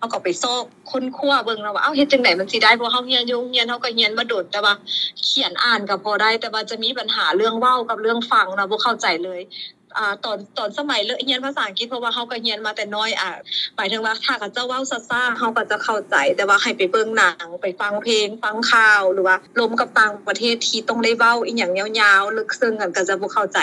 ເຮົາກໍໄປຊອກຄົ້ນຄວ້າເບິ່ງເນາະວ່າ ເອົ້າ ເຮັດຈັ່ງໃດມັນຊິໄດ້ ເພາະເຮົາຮຽນຢູ່ໂຮງຮຽນ ເຮົາກໍຮຽນມາດົນ ແຕ່ວ່າຂຽນອ່ານກໍພໍໄດ້ ແຕ່ວ່າຈະມີບັນຫາເລື່ອງເວົ້າກັບເລື່ອງຟັງນະ ບໍ່ເຂົ້າໃຈເລີຍ. ອາ ຕອນ ຕອນສະໄໝເລີກຮຽນພາສາອັງກິດ ເພາະວ່າເຮົາກໍຮຽນມາແຕ່ນ້ອຍ ອາ ໝາຍເຖິງວ່າຖ້າເຂົາເຈົ້າເວົ້າຊ້າໆ ເຮົາກໍຈະເຂົ້າໃຈ ແຕ່ວ່າໃຫ້ໄປເບິ່ງໜັງ ໄປຟັງເພງ ຟັງຂ່າວ ຫຼືວ່າລົມກັບຕ່າງປະເທດທີ່ຕ້ອງໄດ້ເວົ້າອີ່ຫຍັງຍາວໆ ເລິກເຊິ່ງ ກໍຈະບໍ່ເຂົ້າໃຈ.